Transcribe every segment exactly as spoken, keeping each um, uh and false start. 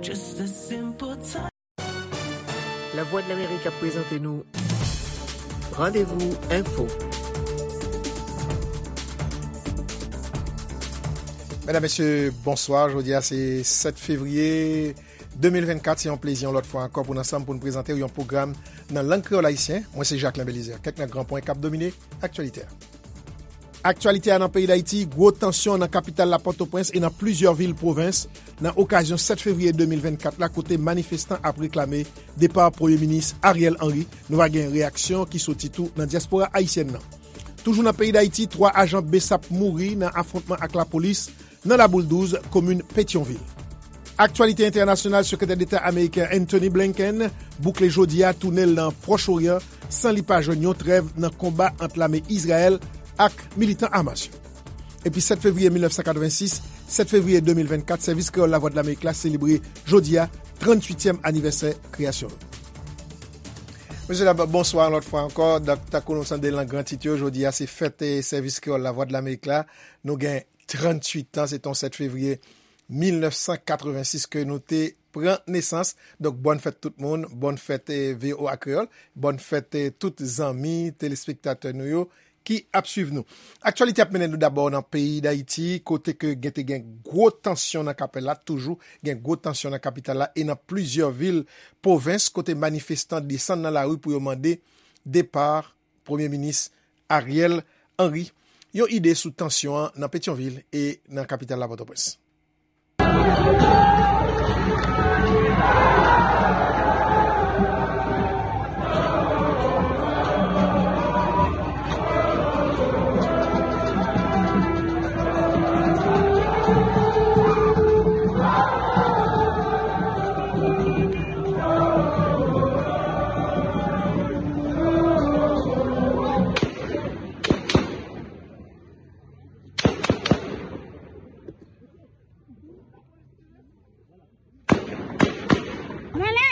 Just a simple time. Lavwadlamerik ap prezante nou Randevou Enfo. Medam, mesye, bonswa. Jodi a se sèt fevriye de mil vennkat. Se yon plezi yon lòt fwa ankò pou n ansanm pou n prezante w yon pwogram nan lang kreyòl ayisyen. Mwen se Jacquelin Belizaire. Kèk nan gran pwen k ap domine aktyalite a. Aktyalite a nan peyi Dayiti, gwo tansyon nan kapital la Pòtoprens e nan plizyè vil pwovens nan okazyon sèt fevriye de mil vennkat la, kote manifestan ap reklame depa Premye Minis Ariel Henry. Nou va gen reyaksyon ki soti tou nan dyaspora ayisyèn nan. Toujou nan peyi Dayiti, twa ajan besap mouri nan afwontman ak lapolis nan Laboul douz, komin Petyonvil. Aktyalite entènasyonal, Sekretè Deta ameriken Antony Blinken boukle jodi a toune l nan Pwòch Oryan san li pa jwenn yon trèv nan konba ant lame Izrayèl ak militan Hamas yo. Epi sèt fevriye mil nèf san katrevensis, sèt fevriye de mil vennkat, Sèvis Kreyòl Lavwadlamerik la selebre jodi a tranntuityèm anivèsè kreyasyon l. Mesye dam, bonswa yon lòt fwa ankò. Donk, tankou nou tande l nan gran tit yo, jodi a se fèt, eh, Sèvis Kreyòl Lavwadlamerik la. Nou gen tranntuit an, se t on sèt fevriye mil nèf san katrevensis ke nou te pran nesans. Donk, bòn fèt tout moun, bòn fèt, eh, V O A Kreyòl, bòn fèt, eh, tout zanmi, telespektatè nou yo ki ap swiv nou. Aktyalite ap mennen nou dabò nan peyi Dayiti, kote ke gen te gen gwo tansyon nan kapitèl la, toujou gen gwo tansyon nan kapital la e nan plizyè vil pwovens, kote manifestan desann nan lari pou yo mande depa Premye Minis Ariel Henry. Yon ide sou tansyon an nan Petyonvil e nan kapital la Pòtoprens. Ann ale!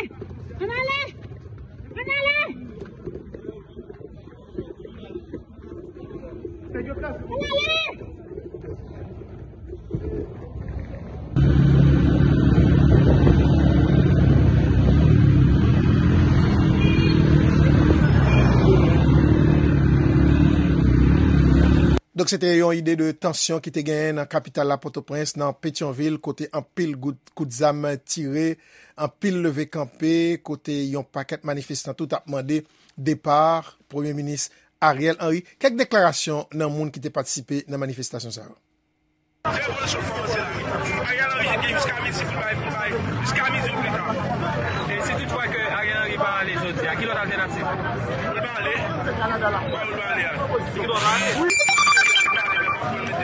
Ann ale! Ann ale! Ann ale! Donk, se te yon ide de tansyon ki te genyen nan kapital la, Pòtoprens, nan Petyonvil, kote anpil gout, kout zam tire, anpil leve kanpe, kote yon pakèt manifestan tou t ap mande depa Premye Minis Ariel Henry. Kèk deklarasyon nan moun ki te patisipe nan manifestasyon sa yo. Fè revolisyon, fòmase lari. Ariel Henry gen jiska midi pou l bay, pou l bay, jiska midi ou pita. E si toutfwa ke Ariel Henry pa ale jodi a, ki lòt altènativ? Pou l pa ale? Kote pou l pa ale a? Ki bò l ale? Ki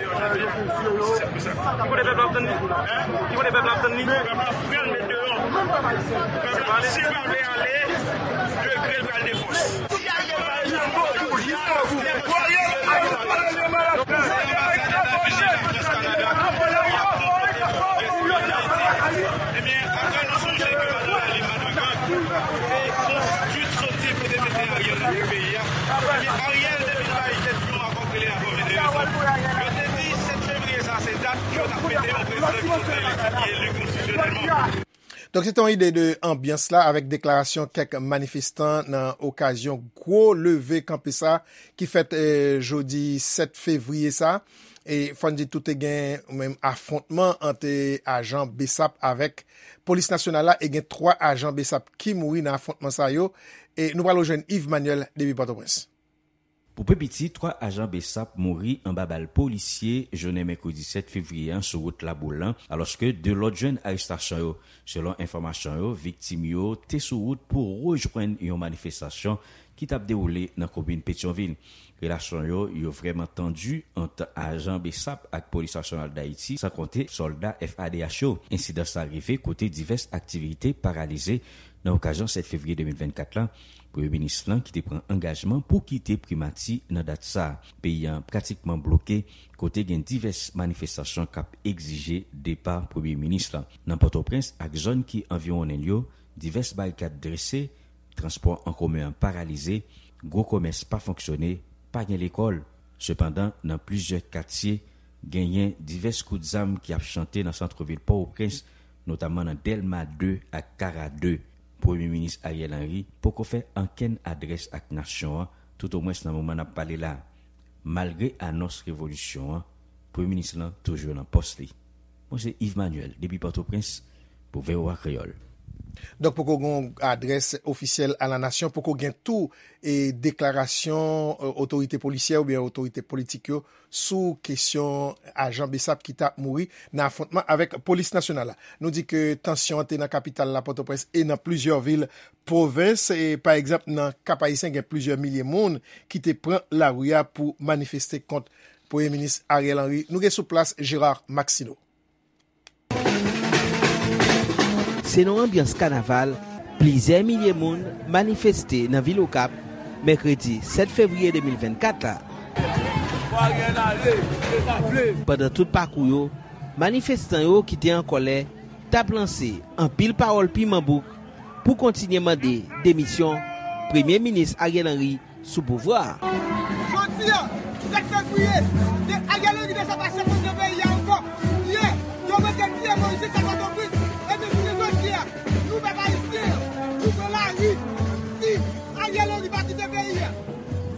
kote pèp la ap tann li? Ki kote pèp la ap tann li? Pèp la pral met deyò. Pèp la, si l pa vle ale, degre l pral de fòs. Ebyen, apre nou sonje ke Madan Lali Madrigal te konstwi soti pou te mete Ariel nan peyi a. Ebyen, Ariel te vin bay tèt yon akò k rele akò Medeyos la. Yo te di sèt fevriye sa, se dat yo t ap mete yon prezidan ki sot nan eleksyon, ki eli konstitisyonèlman. Donk, se te yon ide de anbyans la avèk deklarasyon kèk manifestan nan okazyon gwo leve kanpe sa ki fèt, eh, jodi sèt fevriye sa. E fò n di tou te gen menm afwontman ant, eh, ajan besap avèk polis nasyonal la e gen twa ajan besap ki mouri nan afwontman sa yo. E nou pral rejwenn Yves Manuel depi Pòtoprens. Pou pi piti, twa ajan besap mouri anba bal polisye jounen mèkredi sèt fevriye an sou wout Laboul lan, alòske de lòt jwenn arestasyon yo. Selon enfòmasyon yo, viktim yo te sou wout pou rejwenn yon manifestasyon ki t ap dewoule nan komin Petyonvil. Relasyon yo, yo vrèman tandi ant ajan besap ak Polis Nasyonal Dayiti, san konte sòlda F A D H yo. Ensidan sa rive kote divès aktivite paralize nan okazyon sèt fevriye de mil vennkat la. Premye minis lan ki te pran angajman pou kite primati nan dat sa a. Peyi a pratikman bloke, kote gen divès manifestasyon k ap egzije depa premye minis lan. Nan Pòtoprens ak zòn ki anviwonnen l yo, divès barikad drese, transpò an komen an paralize, gwo komès pa fonksyone, pa gen lekòl. Sepandan, nan plizyè katye, genyen divès kout zam ki ap chante nan santrevil Pòtoprens, notamman nan Dèlma de ak Kara de. Premye Minis Ariel Henry poko fè ankenn adrès ak nasyon an, toutomwens nan moman n ap pale la. Malgre anons revolisyon an, Premye Minis lan toujou nan pòs li. Mwen se Yves Manuel, depi Pòtoprens, pou V O A Kreyòl. Donk, poko gen yon adrès ofisyèl a la nasyon, poko gen tou e deklarasyon e, otorite polisyè oubyen otorite politik yo sou kesyon ajan BSAP ki t ap mouri nan afwontman avèk polis nasyonal la. Nou di ke tansyon an te nan kapital la, Pòtoprens, e nan plizyè vil pwovens. E, pa egzanp, nan Kap Ayisyen, gen plizyè milye moun ki te pran lari a pou manifeste kont Premye Minis Ariel Henry. Nou gen sou plas Gérard Maxineau. Se nan yon anbyans kanaval, plizyè milye moun manifeste nan vil Okap, mèkredi sèt fevriye de mil vennkat la. Pandan tout pakou yo, manifestan yo ki te an kòlè t ap lanse anpil pawòl piman bouk pou kontinye mande demisyon Premye Minis Ariel Henry sou pouvwa a. Jodi a, sèt fevriye, de Ariel Henry deja pa chèf de peyi a ankò. Yè, yo mete tiye Moïse jiska Pòtoprens. Ebyen, jounen jodi a, nou pèp ayisyen an, nou pran lari. Si Ariel Henry pa kite peyi a,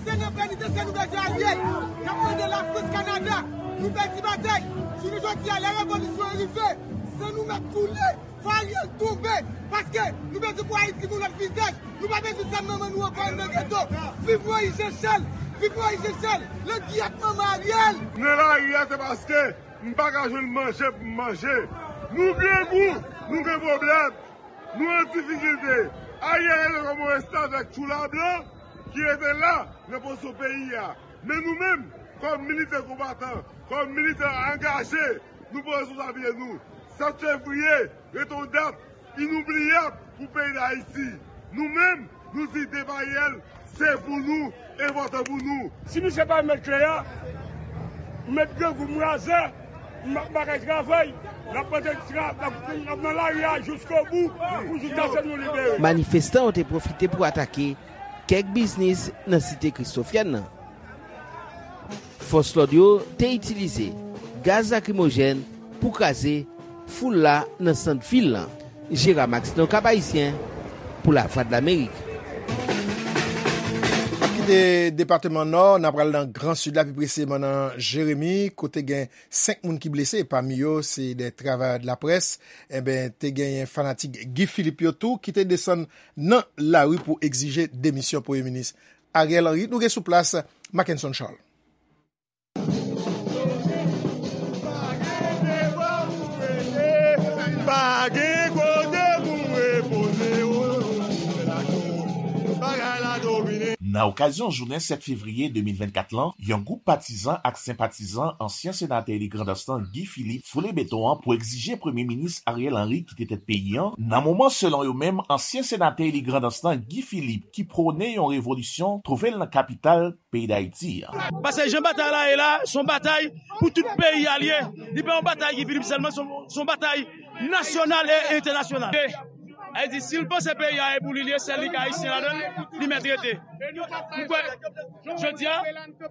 se nan penitansye nou bezwen Ariel. N ap mande Lafrans, Kanada, nou pèdi batay. Jounen jodi a, lè revolisyon an rive, san nou mèt koule. Fò Ariel tonbe, paske nou bezwen pou Ayiti gen yon lòt vizaj. Nou pa bezwen zam manman nou ankò nan geto. Viv Moïse Jean Charles! Viv Moïse Jean Charles! Langyèt manman Ariel! Nan lari a, se paske m pa ka jwenn manje pou m manje. Nou grangou, nou gen pwoblèm, nou an difikilte. Ariel rete kòm yon restavèk tchoula blan ki rete la nan pozisyon peyi a. Men nou menm, kòm militè konbatan, kòm militè angaje, nou pran responsablite nou. Sèt fevriye, rete yon dat inoubliyab pou peyi Dayiti. Nou menm, nou di depa Ariel, se pou nou, enpòtan pou nou. Si misye pa remèt kle a, m met grangou m razè, m pa kay travay, n ap mete tra-, n ap, n ap nan lari a jiskobou, pou jiskaske nou libere. Manifestan yo te pwofite pou atake kèk biznis nan site Kristofyèn nan. Fòs lòd yo te itilize gaz lakrimojèn pou kraze foul la nan sant vil lan. Gérard Maxineau, Kap Ayisyen, pou Lavwadlamerik. N ap kite depatman Nò, n ap pral nan Gran Sid la, pi presizeman nan Jeremi, kote gen senk moun ki blese, pami yo se de travayè de laprès. Enben, te genyen fanatik Guy Philippe yo tou ki te desann nan lari pou egzije demisyon Premye Minis Ariel Henry. Nou gen sou plas Mackenson Charles. Pa gen kote pou repoze, o, se la kou bagay la domine. Nan okazyon jounen sèt fevriye de mil vennkat lan, yon gwoup patizan ak senpatizan ansyen senatè eli Grandans lan, Guy Philippe, foule beton an pou egzije Premye Minis Ariel Henry kite tèt peyi an, nan moman, selon yo menm, ansyen senatè eli Grandans lan, Guy Philippe, ki pwone yon revolisyon, twouve l nan kapital peyi Dayiti an. Paske jan batay la ye la, se yon batay pou tout peyi a l ye. Li pa yon batay Guy Philippe sèlman, se yon, se yon batay nasyonal e entènasyonal. Sa vle di, si l panse peyi a e pou li l ye, sèl li k Ayisyen ladan l, li mèt rete. Ou kwè, jodi a,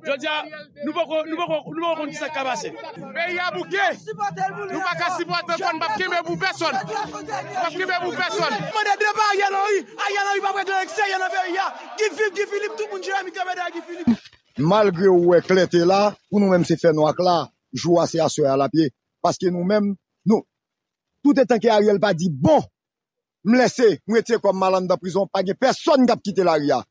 jodi a, nou poko, nou poko, nou poko konn kisa k ka pase. Peyi a bouke. Nou pa ka sipòte l, n p ap kenbe pou pèsonn. N p ap kenbe pou pèsonn. Mande depa Ariel Henry. Ariel Henry p ap regle eksterye nan peyi a. Guy Philippe, Guy Philippe, tout moun Jeremi kanpe dèyè Guy Philippe. Malgre ou wè klète la, pou nou menm se fènwa k la, jou a se aswè a l ap ye. Paske nou menm, nou, toutetan ke Ariel pa di, bon, m lèse, m retire kò m, m al anndan prizon, pa gen pèsonn k ap kite lari a.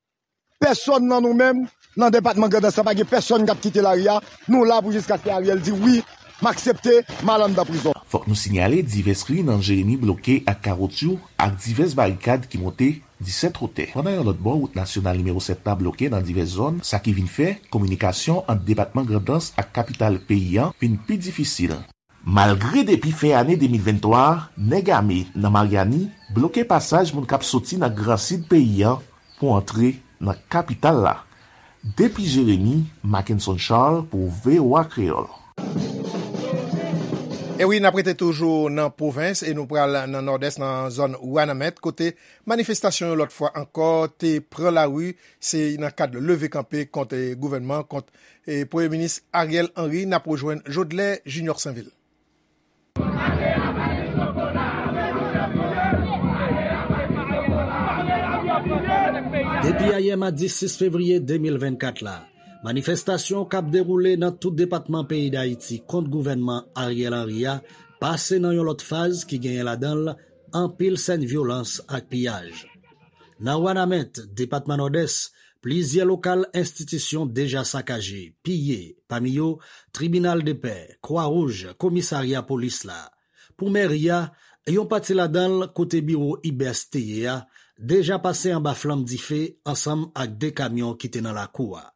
Pèsonn nan nou menm, nan depatman Grandans lan, pa gen pèsonn k ap kite lari a. Nou la pou jiskaske Ariel di, wi, m aksepte, m al anndan prizon. Fòk nou sinyale divès ri nan Jeremi bloke ak kawoutchou ak divès barikad ki monte disèt wotè. Pandan yon lòt bò, wout nasyonal nimewo sèt la bloke nan divès zòn, sa ki vin fè kominikasyon ant depatman Grandans ak kapital peyi an vin pi difisil. Malgre depi fen ane de mil venntwa a, nèg ame nan Maryani bloke pasaj moun k ap soti nan Gran Sid peyi an pou antre nan kapital la. Depi Jeremi, Mackenson Charles pou V O A Kreyòl. E wi, n ap rete toujou nan pwovens e nou pral nan Nòdès, nan zòn Wanament, kote manifestasyon yo lòt fwa ankò te pran lari. Se nan kad leve kanpe kont, eh, gouvènman, kont, eh, Premye Minis Ariel Henry. N ap rejwenn Jodlè Junior Sainvil. Depi ayè madi sis fevriye de mil vennkat la, manifestasyon k ap dewoule nan tout depatman peyi Dayiti kont gouvènman Ariel Henry a pase nan yon lòt faz ki genyen ladan l anpil sèn vyolans ak piyaj. Nan Wanament, depatman Nòdès, plizyè lokal enstitisyon deja sakaje, piye, pami yo tribinal de pè, Kwa Wouj, komisarya polis la. Pou mèri a, yon pati ladan l kote biwo IBES te ye a, deja pase anba flanm dife ansanm ak de kamyon ki te nan lakou a.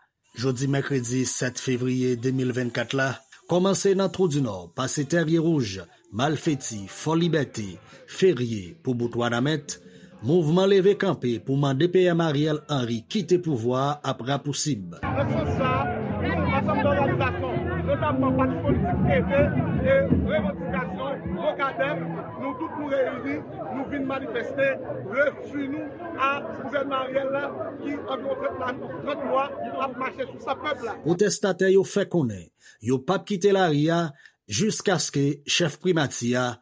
Jodi mèkredi sèt fevriye de mil vennkat la, kòmanse nan Twou di Nò, pase Tèrye Wouj, Malfeti, Fò Libète, Ferye pou bout Wanament, mouvman leve kanpe pou mande PM Ariel Henry kite pouvwa a ap rapousib. Nan sans sa a, nou, ansanm de òganizasyon, notamman pati politik Ede e revandikasyon Mokadèf, nou tout nou reyini, nou vin manifeste refi nou a gouvènman Ariel la ki anviwon trant la, trant mwa ap mache sou san pèp la. Pwotestatè yo fè konnen yo p ap kite lari a jiskaske chèf primati a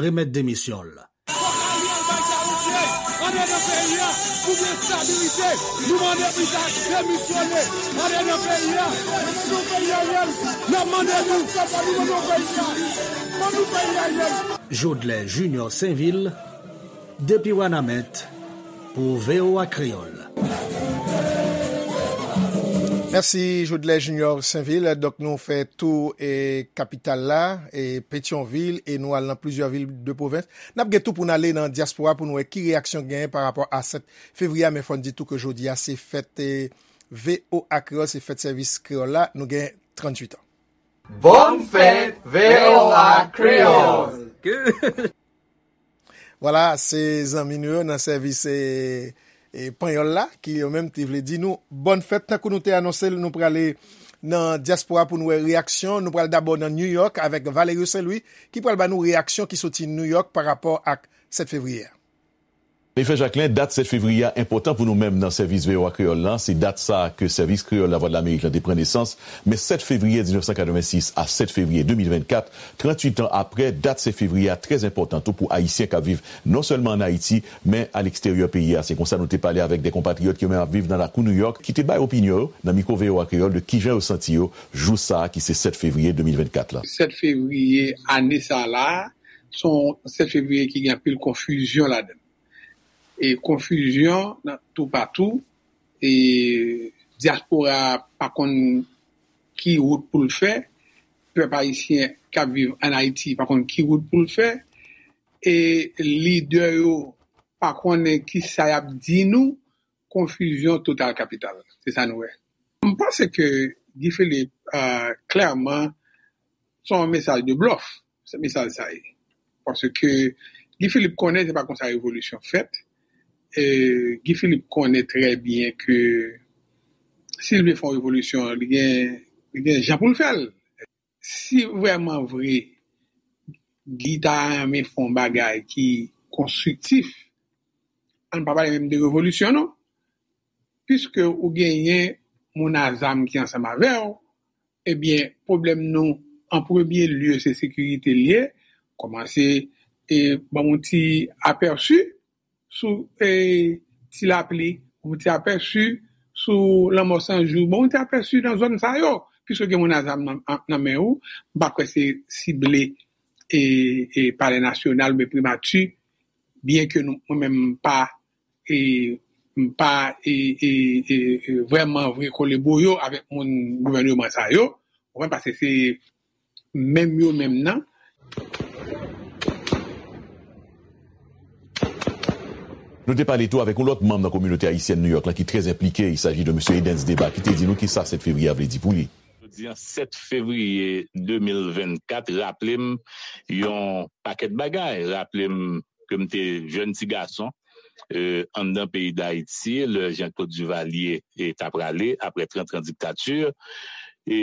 remèt demisyon l. Fòk Ariel bay Ayisyen ann nan peyi a pou gen estabilite. Nou mande pou l ta demisyone ann nan peyi a. Ban nou peyi Ariel. N ap mande nou, ban nou peyi a. Ban nou peyi Ariel. Jodlè Junior Sainvil, depi Wanament, pou VOA Kreyòl. Mèsi, Jodlè Junior Sainvil. Donk, nou fè tou e kapital la, e Petyonvil, e nou al nan plizyè vil de pwovens. N ap gen tou pou n ale nan dyaspora pou n wè ki reyaksyon genyen pa rapò a sèt fevriye a, men fò n di tou ke jodi a se fèt, e, VOA Kreyòl, se fèt sèvis kreyòl la. Nou gen tranntuit an. Bòn fèt, VOA Kreyòl! Vwala, se zanmi nou yo nan sèvis, e, e, panyòl la, ki yo menm te vle di nou bòn fèt. Tankou nou te anonse l, nou prale nan dyaspora pou n wè reyaksyon. Nou pral dabò nan New York avèk Valerio Saint Louis, ki pral ba nou reyaksyon ki soti New York pa rapò ak sèt fevriye a. Efè Jacquelin, dat sèt fevriye a enpòtan pou nou menm nan sèvis VOA Kreyòl lan. Se dat sa a ke sèvis kreyòl Lavwadlamerik lan te pran nesans. Men sèt fevriye diznèf san katrevensis a sèt fevriye de mil vennkat, tranntuit an aprè, dat sèt fevriye a trè enpòtan tou pou Ayisyen k ap viv non sèlman ann Ayiti, men aleksteryè peyi a. Se konsa nou te pale avèk de konpatriyòt ki yo menm ap viv nan lakou New York, ki te bay opinyon yo nan mikwo VOA Kreyòl de kijan yo santi yo jou sa a ki se sèt fevriye de mil vennkat la. Sèt fevriye ane sa a la, se yon sèt fevriye ki gen anpil konfizyon ladan l. E konfizyon nan toupatou, e dyaspora a pa konn ki wout pou l fè, pèp ayisyen k ap viv ann Ayiti pa konn ki wout pou l fè, e lidè yo pa konnen kisa y ap di nou, konfizyon total kapital. Se sa nou wè. M panse ke Guy Philippe, euh, klèman, se yon mesaj de blòf, se mesaj sa ye. Paske Guy Philippe konnen se pa konsa revolisyon fèt. E Guy Philippe konnen trè byen ke si l vle fè yon revolisyon, li gen, li gen jan pou l fè l. Si vrèman vre Guy ta renmen fè yon bagay ki konstriktif, ann pa pale menm de revolisyon non. Piske ou genyen moun a zam ki ansanm avè w, ebyen, pwoblèm nou, an premye lye, se sekirite l ye. Kòmanse, e, ban m yon ti apèsi sou, e, Ti Lapli, yon ti apèsi sou Lanmò San Jou, ban m yon ti apèsi nan zòn sa yo, piske gen moun a zam nan, nan men ou, m pa kwè se sible, e, e, Palè Nasyonal oubyen Primati, byen ke nou, mwen menm m pa e m pa e, e, e, e, vrèman vre kole boyo avèk moun gouvèneman sa yo, ou konprann, paske se menm yo menm nan. Nou te pale tou avèk yon lòt manm nan kominote ayisyèn New York lan ki trè enplike, il s'agit de mesye Edens Deba, ki te di nou kisa sèt fevriye a vle di pou li. Jodi an, sèt fevriye de mil vennkat, raple m yon pakèt bagay. Raple m ke m te jèn ti gason, e, anndan peyi Dayiti, lè Jean Claude Duvalier, e, t ap prale, aprè trant an diktati, e,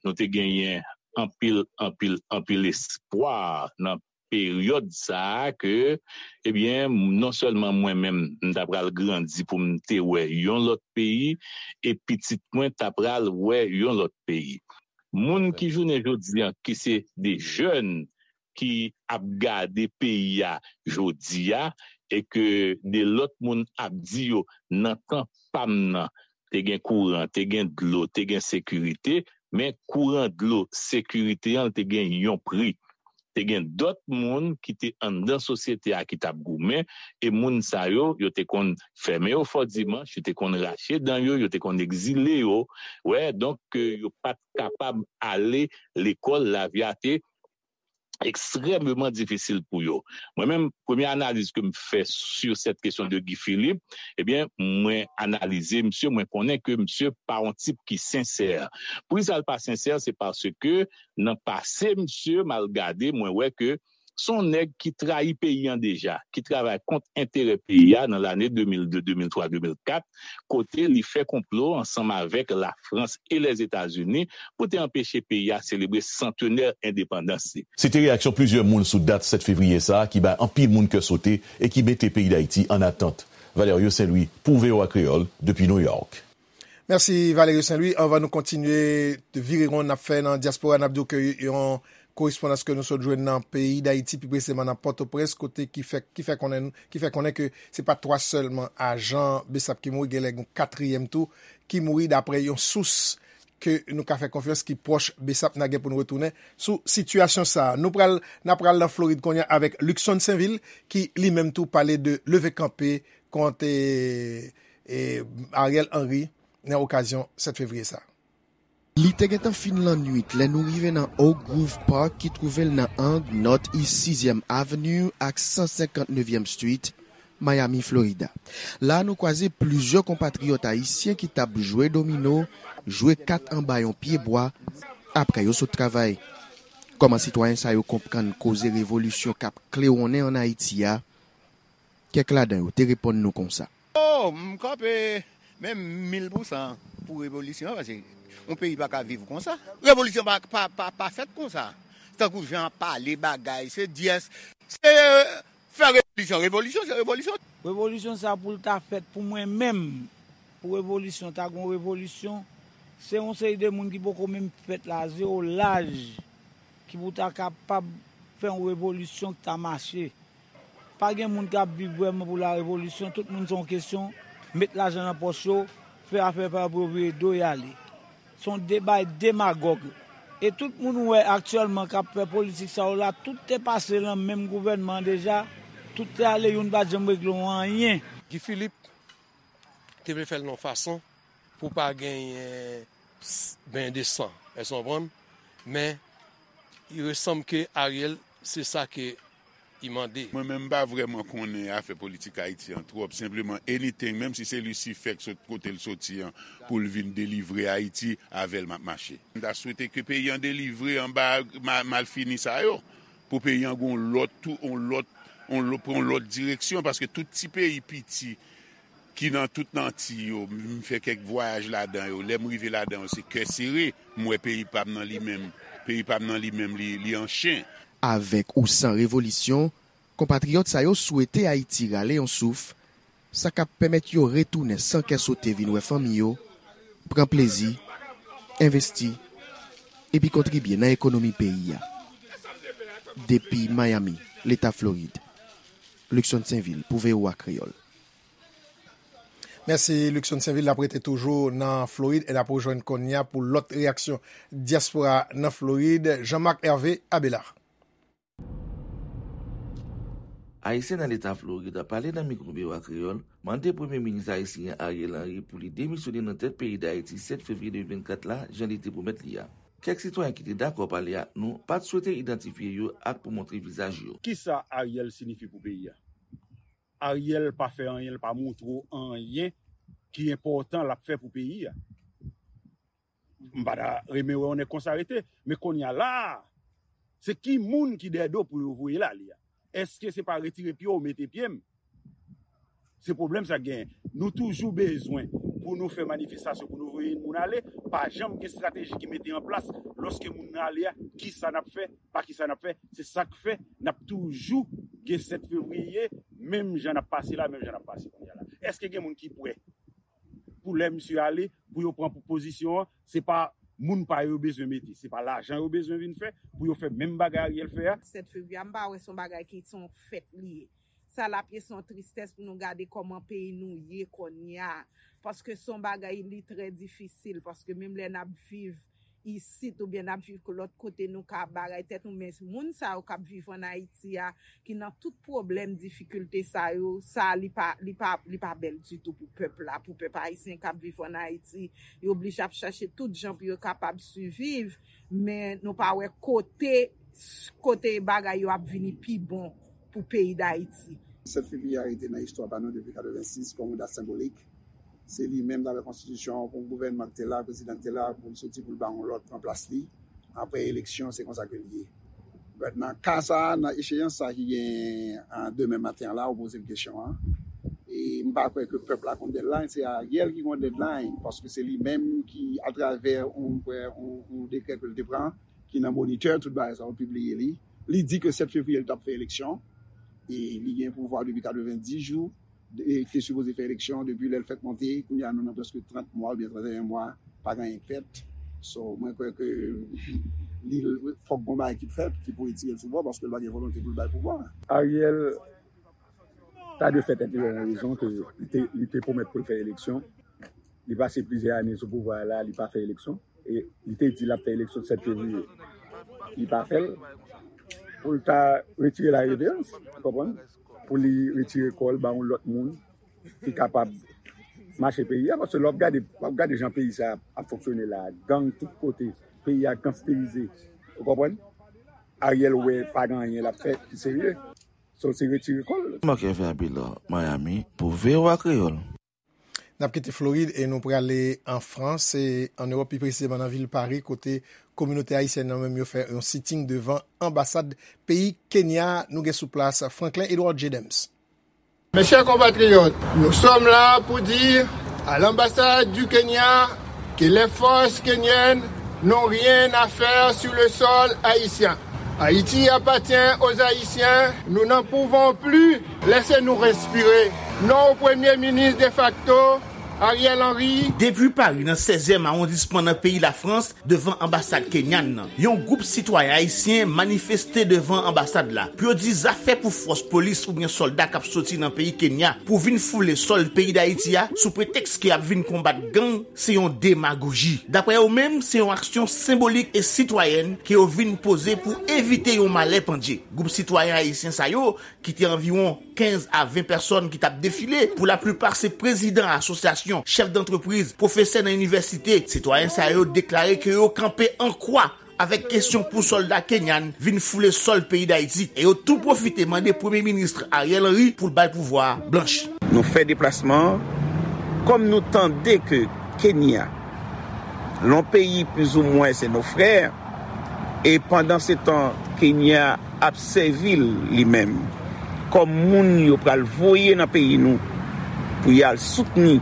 nou te genyen anpil, anpil, anpil espwa nan peryòd sa a ke, ebyen, non sèlman mwen menm, m ta pral grandi pou m te wè yon lòt peyi, e pitit mwen ta pral wè yon lòt peyi. Moun ki jounen jodi an, ki se de jèn ki ap gade peyi a jodi a, e ke de lòt moun ap di yo nan tan pa m nan, te gen kouran, te gen dlo, te gen sekirite, men kouran, dlo, sekirite an te gen yon pri. Te gen dòt moun ki te anndan sosyete a ki t ap goumen, e moun sa yo, yo te konn fèmen yo fò dimanch, yo te konn rache dan yo, yo te konn egzile yo. Wè, donk, ke yo pa t kapab ale lekòl, lavi a te ekstrèmeman difisil pou yo. Mwen menm, premye analiz ke m fè sur cette question de Guy Philippe, ebyen, mwen analize misye, mwen konnen ke misye pa yon tip ki sensè. Poukisa l pa sensè? Se paske nan pase, misye, m al gade, mwen wè ke se yon nèg ki trayi peyi an deja, ki travay kont enterè peyi a nan lane de mil de, de mil twa, de mil kat, kote li fè konplo ansanm avèk Lafrans e Lèzetazini pou te anpeche peyi a selebre santenè endepandans li. Se te reyaksyon plizyè moun sou dat sèt fevriye sa a ki bay anpil moun kè sote e ki mete peyi Dayiti ann atant. Valerio Saint Louis pou V O A Kreyòl depi New York. Mèsi Valerio Saint Louis. Anvan nou kontinye vire won n ap fè nan dyaspora, n ap di w ke yon korespondans ke nou sot jwenn nan peyi Dayiti, pi presizeman nan Pòtoprens, kote ki fè, ki fè konnen, ki fè konnen ke se pa twa sèlman ajan BSAP ki mouri, genlè gen yon katriyèm tou ki mouri, daprè yon sous ke nou ka fè konfyans ki pwòch BSAP. N a gen pou n retounen sou sitiyasyon sa a. Nou pral, n a pral nan Florid kounye a avèk Luckson Sainvil ki li menm tou pale de leve kanpe kont e, e, Ariel Henry nan okazyon sèt fevriye sa a. Li te gentan fin lannwit lè nou rive nan Oak Grove Park ki twouve l nan ang Northeast Sizyèm Avenue ak san senkant nevyèm Street, Miami, Florida. La a nou kwaze plizyè konpatriyòt ayisyen ki t ap jwe domino, jwe kat anba yon pyebwa, apre yo sot travay. Kòman sitwayen sa yo konprann koze revolisyon k ap klewonnen ann Ayiti a? Kèk ladan yo te reponn nou konsa. Oh, m kanpe menm mil pou san pou revolisyon an, paske yon peyi pa ka viv konsa. Revolisyon pa, pa, pa, pa fèt konsa. Tankou jan ap pale bagay, se dyès, se fè revolisyon, revolisyon, se revolisyon. Revolisyon sa pou l ta fèt pou mwen menm, pou revolisyon, ta gon revolisyon, se yon seri de moun ki poko menm fèt la, zewo laj, ki pou ta kapab fè yon revolisyon ki ta mache. Pa gen moun k ap viv vrèman pou la revolisyon, tout moun se yon kesyon met lajan nan pòch yo, fè afè pa yo pou yo vire do y ale. Se yon debay demagòg. E tout moun ou wè aktyèlman k ap fè politik sa yo la, tout te pase lan menm gouvènman an deja, tout te ale, youn pa t janm regle yon anyen. Guy Philippe te vle fè l nan yon fason pou pa genyen benyen de san, èske w konprann? Men, il resanm ke Ariel, se sa ke i mande. Mwen menm m pa vrèman konnen afè politik Ayiti an twòp, senpleman anything, menm si se Lisifè k sot kote l soti an pou l vin delivre Ayiti, avè l m ap mache. M ta swete ke peyi an delivre anba malfini sa yo, pou peyi an gen yon lòt tou, yon lòt, yon lòt, pran yon lòt direksyon, paske tout ti peyi piti ki nan tout Anti yo, m fè kèk vwayaj ladan yo, lè m rive ladan yo se kè sere, m wè peyi pa m nan li menm, peyi pa m nan li menm li, li an chen. Avèk ou san revolisyon, konpatriyòt sa yo swete Ayiti rale yon souf, sa k ap pèmèt yo retounen san kè sote vin wè fanmi yo, pran plezi, envesti, epi kontribye nan ekonomi peyi a. Depi Miami, Leta Florid, Luckson Sainvil pou V O A Kreyòl. Mèsi Luckson Sainvil, n ap rete toujou nan Florid e n ap rejwenn kounye a pou lòt reyaksyon dyaspora nan Florid, Jean Marc Hervé Abelard. Ayisyen nan Leta Florid pale nan mikwo V O A Kreyòl, mande Premye Minis ayisyen Ariel Henry pou li demisyone nan tèt peyi Dayiti sèt fevriye de mil vennkat la, jan li te pwomèt li a. Kèk sitwayen ki te dakò pale ak nou pa t swete idantifye yo ak pou montre vizaj yo. Kisa Ariel siyifi pou peyi a? Ariel pa fè anyen, l pa montre w anyen ki enpòtan l ap fè pou peyi a. M pa ta renmen wè yon nèg konsa rete. Men kounye a la a, se ki moun ki dèyè do pou yo voye l ale a? Èske se pa retire pye w mete pye m? Se pwoblèm sa k genyen. Nou toujou bezwen pou nou fè manifestasyon, pou nou voye moun ale, pa janm gen estrateji ki mete an plas lòske moun nan ale a, kisa n ap fè, pa kisa n ap fè, se sa k fè n ap toujou gen sèt fevriye, menm jan n ap pase la, menm jan n ap pase kounye a la. Èske gen moun ki prè pou lè misye ale, pou yo pran pozisyon an, se pa moun pa yo yo bezwen mete, se pa lajan yo bezwen vin fè pou yo fè menm bagay Ariel fè a. Sèt fevriye a, m pa wè se yon bagay ki se yon fèt li ye. Sa l ap ye se yon tristès pou nou gade kòman peyi nou ye kounye a. Paske se yon bagay li trè difisil, paske menm lè n ap viv isit oubyen n ap viv lòt kote, nou ka bagay tèt nou, men moun sa yo k ap viv ann Ayiti a, ki nan tout pwoblèm, difikilte sa yo, sa li pa, li pa, li pa bèl ditou pou pèp la, pou pèp ayisyen k ap viv ann Ayiti. Yo oblije ap chache tout jan pou yo kapab siviv, men nou pa wè kote, kote bagay yo ap vini pi bon pou peyi Dayiti. Sèt fevriye a rete nan istwa pa nou depi katrevensis kòm yon dat senbolik. Se li menm, dapre konstitisyon an, pou gouvènman ki te la, prezidan ki te la, pou l soti pou l ba yon lòt pran plas li. Apre eleksyon, se konsa ke l ye. But nan ka sa a, nan echeyans sa ki gen an demen maten an la, ou poze m kesyon an. E m pa kwè ke pèp la konn deadline, se Ariel ki konn deadline, paske se li menm ki, atravè yon, yon, yon dekrè ke l te pran, ki nan Monitè, tout bagay sa yo pibliye li. Li di ke sèt fevriye li t ap fè eleksyon. E li gen pouvwa depi katrevenndis jou. E te sipoze fè eleksyon depi lè l fèk monte. Kounye a nou nan prèske trant mwa oubyen trannteyen mwa, pa gen anyen k fèt. So, mwen kwè ke li, fòk gon bagay ki fèt ki pou retire l sou pouvwa, paske l pa gen volonte pou l bay pouvwa. Ariel ta dwe fè tèt li yon rezon ke li te, li te pwomèt pou l fè eleksyon. Li pase plizyè ane sou pouvwa a la, li pa fè eleksyon. E li te di l ap fè eleksyon sèt fevriye. Li pa fè l. Pou l ta retire la reverans, ou konprann? Pou li retire kò l ba yon lòt moun ki kapab mache peyi a. Paske lè w ap gade, w ap gade jan peyi sa ap fonksyone la, gang tout kote, peyi a gangsterize. Ou konprann? Ariel wè pa gen anyen l ap fè ki serye. So, se retire kò l. Marc Hervé Abelard, Miami, pou V O A Kreyòl. N ap kite Florid e nou prale an Frans, e an Ewòp, pi presizeman nan vil Pari, kote kominote ayisyèn nan menm yo fè yon sitting devan anbasad peyi Kenya. Nou gen sou plas Franklin Edouard Jedems. Mes chers compatriotes, nous sommes là pour dire à l'ambassade du Kenya que les forces kenyennes n'ont rien à faire sur le sol haïtien. Haïti appartient aux Haïtiens. Nous n'en pouvons plus. Laissez-nous respirer. Non au Premier ministre de facto, Ariel Henry. Depi Pari, nan sèzyèm awondisman nan peyi Lafrans, devan anbasad kenyan nan, yon gwoup sitwayen ayisyen manifeste devan anbasad la pou yo di zafè pou fòs polis oubyen sòlda k ap soti nan peyi Kenya pou vin foule sòl peyi Dayiti a sou pretèks ke y ap vin konbat gang se yon demagoji. Daprè yo menm, se yon aksyon senbolik e sitwayèn ke yo vin poze pou evite yon malè pandye. Gwoup sitwayen ayisyen sa yo, ki te anviwon kenz a ven pèsòn ki t ap defile, pou laplipa se prezidan asosyasyon, chèf dantrepriz, pwofesè nan inivèsite, sitwayen sa yo deklare ke yo kanpe an kwa avèk kesyon pou sòlda kenyan vin foule sòl peyi Dayiti, e yo tou pwofite mande Premye Minis Ariel Henry pou l bay pouvwa a blanch. Nou fè deplasman an, kòm nou tande ke Kenya, yon peyi plizoumwen se nos frères, e pandansetan Kenya ap sèvi l li menm kòm moun yo pral voye nan peyi nou pou y al soutni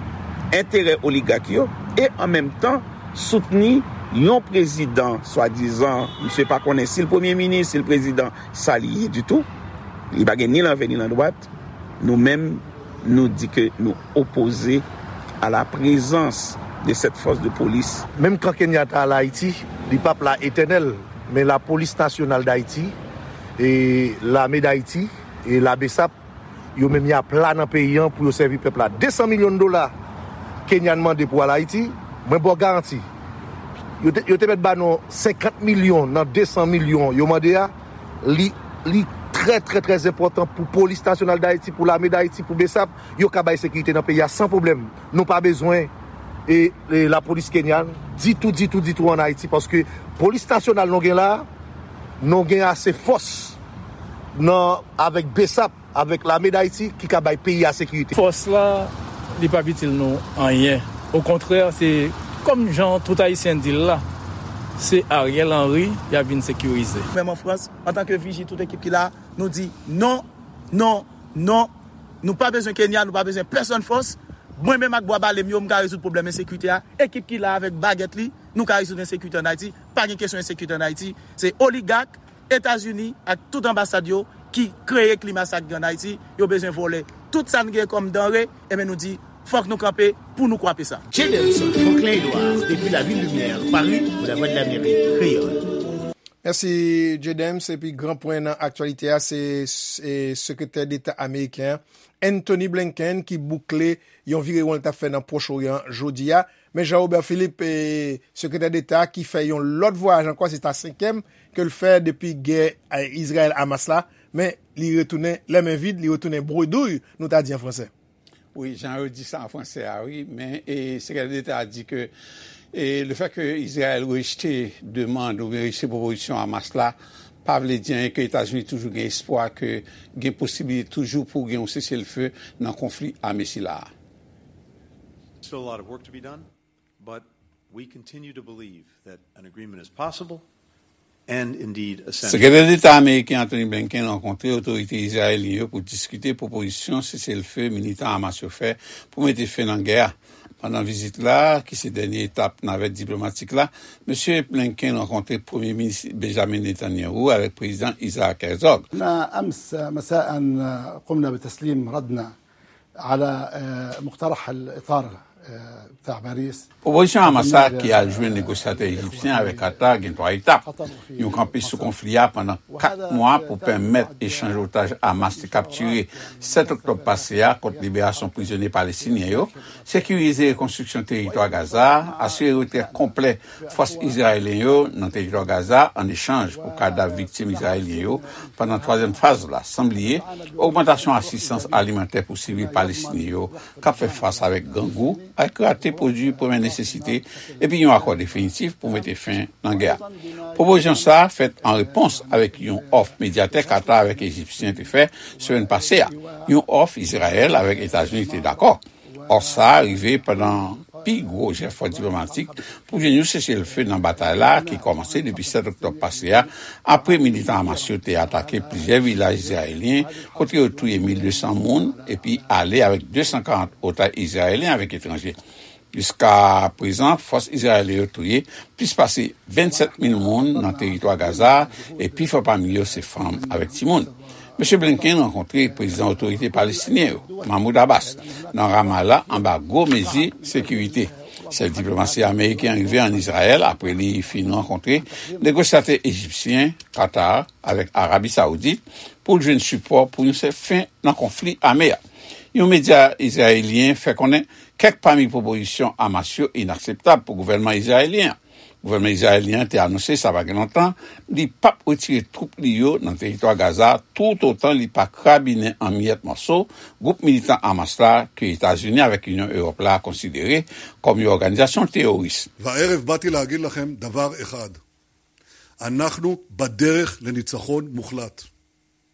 enterè oligak yo e an menm tan soutni yon prezidan swadizan, misye pa konnen si l premye minis, si l prezidan, sa li ye ditou. Li pa gen ni lanvè ni landwat. Nou menm, nou di ke nou opoze à la présence de cette force de police. Menm kan Kenyatta al Ayiti, li p ap la etènèl, men Lapolis Nasyonal Dayiti, e Lame Dayiti, e la BSAP, yo menm y ap la nan peyi an pou yo sèvi pèp la. De san milyon dola Kenyan mande pou al Ayiti, mwen ba w garanti. Yo te, yo te mèt ba nou senkant milyon nan de san milyon yo mande a. Li, li trè, trè, trè enpòtan pou Polis Nasyonal Dayiti, pou Lame Dayiti, pou BSAP, yo ka bay sekirite nan peyi a san pwoblèm. Nou pa bezwen e, e lapolis kenyan ditou, ditou, ditou ann Ayiti, paske Polis Nasyonal nou gen la, nou gen ase fòs nan, avèk BSAP, avèk Lame Dayiti ki ka bay peyi a sekirite. Fòs la, li p ap itil nou anyen. Okontrè, se kòm jan tout Ayisyen di l la, se Ariel Henry y ap vin sekirize. Menm an Frans, antanke Viji, tout ekip ki la, nou di non, non, non. Nou pa bezwen Kenya, nou pa bezwen pèsonn fòs. Mwen menm ak bwa bale m yo, m ka rezoud pwoblèm ensekirite a. Ekip ki la avèk bagèt li, nou ka rezoud ensekirite ann Ayiti. Pa gen kesyon ensekirite ann Ayiti. Se oligak, Etazini ak tout anbasad yo ki kreye klima sa k gen ann Ayiti. Yo bezwen vòlè tout sa n gen kòm danre, enben nou di, fòk nou kanpe pou nou kwape sa. Jay Delson, Franklin Edouard, depi Lavil Limyè, Pari, pou Lavwadlamerik Kreyòl. Mèsi, J-Dems. Epi gran pwen nan aktyalite a, se, se Sekretè Deta ameriken an, Antony Blinken, ki boukle yon virewon l t ap fè nan Pwòch Oryan jodi a. Men Jean Robert Philippe, e, Sekretè Deta, ki fè yon lòt vwayaj ankò, se ta senkyèm ke l fè depi gè, e, Izrayèl-Hamas la. Men li retounen lè men vid, li retounen bredouille, nou ta di an fransè. Wi, jan yo di sa an fransè a, wi, men, e, Sekretè Deta a di ke, e, le fè ke Izrayèl rejte demann oubyen rejte pwopozisyon Hamas la, pa vle di anyen, ke Etazini toujou gen espwa ke gen posiblite toujou pou gen yon seselfe nan konfli ame sila a. Still a lot of work to be done, but we continue to believe that an agreement is possible and indeed essential. Sekretè Deta ameriken Antony Blinken rankontre otorite izrayelyen yo pou diskite pwopozisyon seselfe militan Hamas yo fè pou mete fen nan gè a. Pandan vizit la, ki se dènye etap navèt diplomatik la, Mesye Blinken rankontre Premye Minis Benjamin Netanyahu avèk Prezidan Isaac Herzog. أمس مساء قمنا بتسليم ردنا على مقترح الإطار بتاع باريس. Pwopozisyon Hamas la ki al jwenn negosyatè ejipsyen avèk Qatar gen twa etap. Yon kanpe sou konfli a pandan kat mwa pou pèmèt echanj otaj Hamas te kaptire sèt oktòb pase a kont liberasyon prizonye palestinyen yo, sekirize rekonstriksyon teritwa Gaza, asire retrè konplè fòs izrayelyen yo nan teritwa Gaza an echanj pou kadav viktim izrayelyen yo pandan twazyèm faz la, san bliye ogmantasyon asistans alimantè pou sivil palestinyen yo k ap fè fas avèk grangou ak rate pwodui premyè nesesite, epi yon akò definitif pou mete fen nan gè a. Pwopozisyon sa a fèt an repons avèk yon òf medyatè Qatar avèk Ejipsyen te fè semèn pase a, yon òf Izrayèl avèk Etazini te dakò. Òf sa a rive pandan pi gwo jefò diplomatik pou jwenn yon seselfe nan batay la ki kòmanse depi sèt oktòb pase a, apre militan Hamas yo te atake plizyè vilaj izrayelyen kote yo touye mil de san moun epi ale avèk de san karant otaj izrayelyen avèk etranje. Jiska prezan, fòs izrayelyen yo touye plis pase vennsèt mil moun nan teritwa Gaza, e pifò pami yo se fanm avèk timoun. Mesye Blinken rankontre prezidan otorite palestinyen yo, Mahmoud Abbas, nan Ramallah anba gwo mezi sekirite. Chèf diplomasi ameriken an rive ann Izrayèl apre li fin rankontre negosyatè ejipsyen, Qatar avèk Arabi Sawoudit pou l jwenn sipò pou yon sèl fen nan konfli ame a. Yon medya izrayelyen fè konnen kèk pami pwopozisyon Hamas yo inakseptab pou gouvènman izrayelyen an. Gouvènman izrayelyen an te anonse sa pa gen lontan li p ap retire twoup li yo nan teritwa Gaza toutotan li pa krabinen an miyèt mòso gwoup militan Hamas la ke Etazini avèk Inyon Ewòp la konsidere kòm yon òganizasyon teworis. והערב באתי להגיד לכם דבר אחד. אנחנו בדרך לניצחון מוחלט.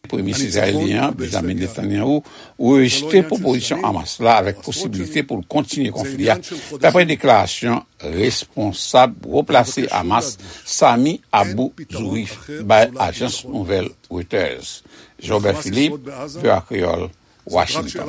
Premye Minis izrayelyen an, Benjamin Netanyahu, rejte pwopozisyon Hamas la avèk posibilite pou l kontinye konfli a. Dapre deklarasyon responsab wo plase Hamas, Sami Abu Zuhri, bay ajans nouvèl Reuters. Jean-Robert Philippe, V O A Kreyòl, Washington.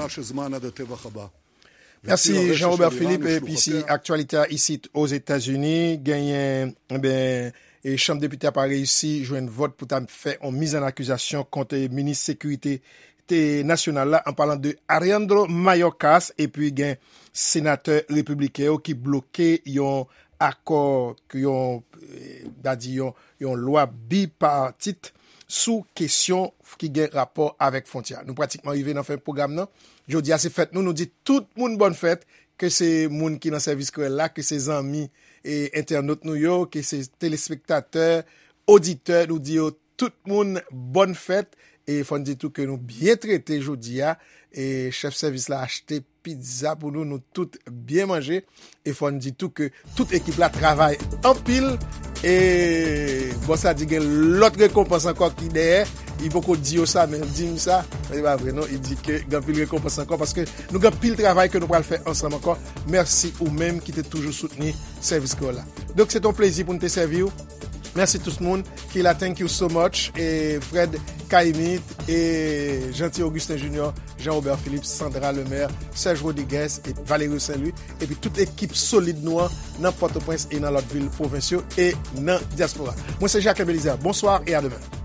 Mèsi, Jean-Robert Philippe. Epi si aktyalite a isit Ozetazini, genyen, enben, e Chanm Depite a pa reyisi jwenn vòt pou ta fè yon mizannakizasyon kont minis sekirite te nasyonal la, an palan de Alejandro Mayorkas, epi gen senatè repibliken yo ki bloke yon akò, yon, eh, ta di yon, yon lwa bipatit sou kesyon ki gen rapò avèk fwontyè a. Nou pratikman rive nan fen pwogram nan. Jodi a se fèt nou, nou di tout moun bòn fèt, ke se moun ki nan sèvis kreyòl la, ke se zanmi e entènot nou yo, ke se telespektatè, oditè, nou di yo tout moun bòn fèt. E fò n di tou ke nou byen trete jodi a. E chèf sèvis la achte pizza pou nou, nou tout byen manje. E fò n di tou ke tout ekip la travay anpil. E bòs la di gen lòt rekonpans ankò ki dèyè. Li poko di yo sa, men l di m sa. Men se pa vre non, li di ke gen anpil rekonpans ankò paske nou gen anpil travay ke nou pral fè ansanm ankò. Mèsi ou menm ki te toujou soutni sèvis kreyòl la. Donk, se te yon plezi pou n te sèvi w. Mèsi tout moun ki la, thank you so much. E Fred Caïmite, e Jeanty Augustin Junior, Jean Robert Philippe, Sandra Lemaire, Serge Rodriguez, e Valerio Saint Louis, epi tout ekip solid nou an nan Pòtoprens e nan lòt vil pwovens yo e nan dyaspora. Mwen se Jacques Belizaire. Bonsoir et à demain.